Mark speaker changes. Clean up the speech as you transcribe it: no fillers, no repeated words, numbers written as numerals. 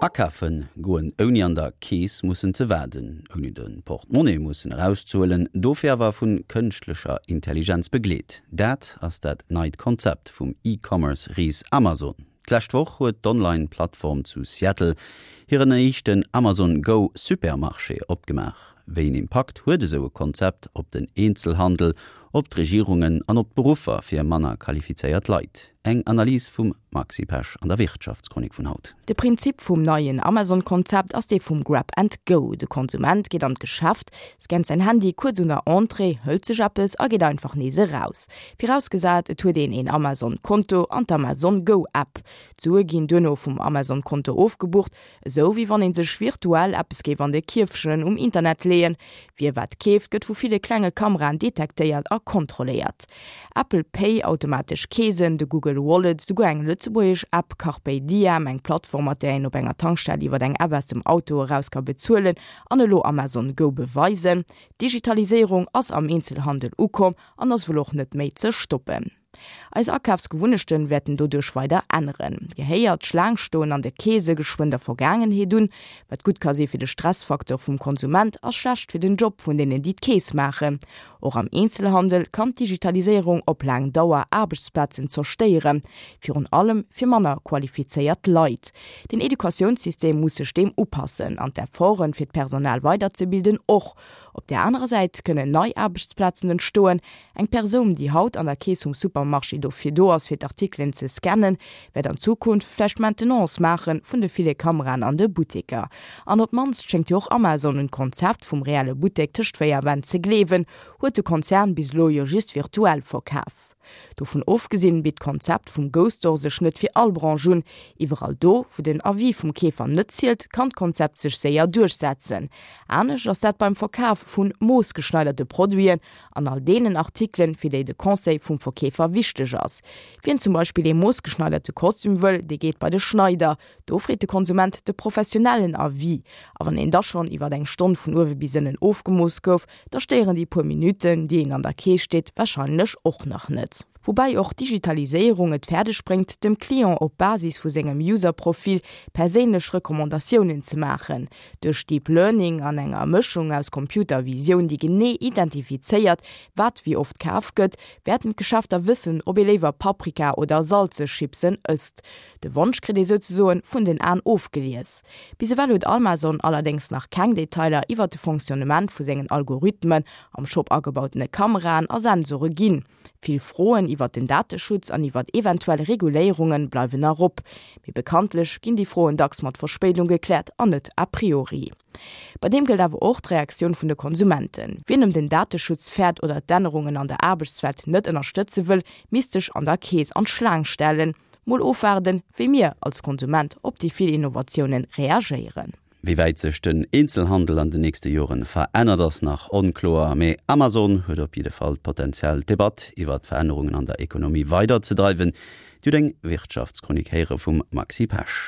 Speaker 1: Akafe goen ouni an der Keess mussen ze waarden, ouni de Portemonnaie mussen erauszehuelen, dofir awer vu kënschtlecher Intelligenz begleet, dat ass dat neit Konzept vum E-Commerce-Ris Amazon. D'lescht Woch huet d'Online-Plattform zu Seattle hiren éischten Amazon Go Supermarché opgemaach. Wéi een Impakt huet esou e Konzept op den Eenzelhandel, op d'Regierungen an op d'Beruffer fir manner qualifizéiert Leit? Eng Analys vum Maxi Pesch an der Wirtschaftschronik vun haut.
Speaker 2: De Prinzip vum neien Amazon-Konzept ass dee vum Grab and Go. De Konsument geet an d'Geschäft, scannt säin Handy kuerz un der Entrée, hëlt sech eppes a geet einfach nees eraus. Virausgesat et huet een een Amazon-Konto an d'Amazon Go App. D'Sue ginn duerno vum Amazon-Konto ofgebucht, Esou wéi wann een sech virtuell eppes géif an de Kierfchen um Internet leeën. Wie wat keeft, gëtt vu ville klenge Kameraen detektéiert a kontrolléiert. Apple Pay, automatesch Keesen, de Google Wallet, souguer eng lëtzebuergesch App, Carpe Diem, eng Plattform mat där een op enger Tankstell iwwer eng App aus dem Auto eraus ka bezuelen an elo Amazon Go beweisen, d'Digitaliséierung ass am Eenzelhandel ukomm an ass wuel och net méi ze stoppen. Eis Akafsgewunnechten wäerten doduerch weider änneren. Gehéiert d'Schlaang stoen an de Keese geschwënn der Vergaangenheet un? Wat gutt ka si fir de Stressfaktor vum Konsument, ass schlecht fir den Job vun deenen, déi d'Kees maachen. Och am Eenzelhandel kann d'Digitaliséierung op laang Dauer Aarbechtsplazen zerstéieren, virun allem fir manner qualifizéiert Leit. Den Educatiounssystem muss sech deem upassen an d'Efforten, fir d'Personal weiderzebilden, och. Op där anerer Säit kënnen nei Aarbechtsplazen entstoen. Eng Persoun, déi haut an der Keess vum Supermarché dofir do ass, fir d'Artikelen ze scannen, wäert an Zukunft vläicht d'Maintenance maache vun de ville Kameraen an de Butteker. An op d'mannst schéngt jo och Amazon un d'Konzept vum reelle Buttek tëscht 4 Wänn ze gleewen, huet de Konzern bis elo jo just virtuell verkaf. Dovun ofgesinn bitt d'Konzept vum Go-Store sech net fir all Branche un. Iwwerall do, wou den Avis vum Keefer net zielt, kann d'Konzept sech séier duerchsetzen. Anescht ass dat beim Verkaf vu moossgeschneiderte Produiten an all deenen Artikelen, fir déi de Conseil vum Verkeefer wichteg ass. Wien zum Beispill ee moossgeschneiderte Kostüm wëll, dee geet bei de Schneider. Do freet de Konsument de professionellen Avis. A wann een da schonn iwwer eng Stonn vun uewe bis ënnen ofgemooss gouf, da stéieren déi puer Minutten, déi een an der Kees steet, warscheinlech och nach net. Woubäi och d'Digitaliséierung et fäerdeg bréngt, dem Client op Basis vu sengem User-Profil perséinlech Recommandatiounen ze maachen. Duerch Deep Learning an enger Mëschung aus Computervisioun, déi genee identifizéiert, wat wéi oft kaf gëtt, wäerten d'Geschäfter wëssen, ob ee léiwer Paprika oder salzeg Chipsen ësst. De Wonsch kritt ee souzesoen vun den Aen ofgelies. Bis ewell huet Almazon allerdéngs nach keng Detailer iwwert de Fonctionnement vu sengen Algorithmen, am Shop agebautene Kameraen a Sensore ginn. Vill Froen iwwert den Dateschutz an iwwert eventuell Reguléierunge bleiwen nach op. Mee bekanntlech ginn déi Froen dacks mat Verspéidung gekläert an net a priori. Bei deem gëllt awer och d'Reaktioun vun de Konsumenten. Wien ëm den Dateschutz fäert oder d'Ännerungen an der Aarbechtswelt net ënnerstëtze wëll, misst sech an der Kees an d'Schlaang stellen. Mol ofwaarden, wéi mir als Konsument op déi vill Innovatiounen reagéieren.
Speaker 1: Wéi wäit sech den Eenzelhandel an den nächste Joren verännert ass nach onkloer, mee Amazon huet op jidde Fall d'Potenzial d'Debatt iwwer d'Verännerungen an der Ekonomie weider ze dreiwen. Dir hutt eng Wirtschaftschronik héiere vum Maxi Pesch.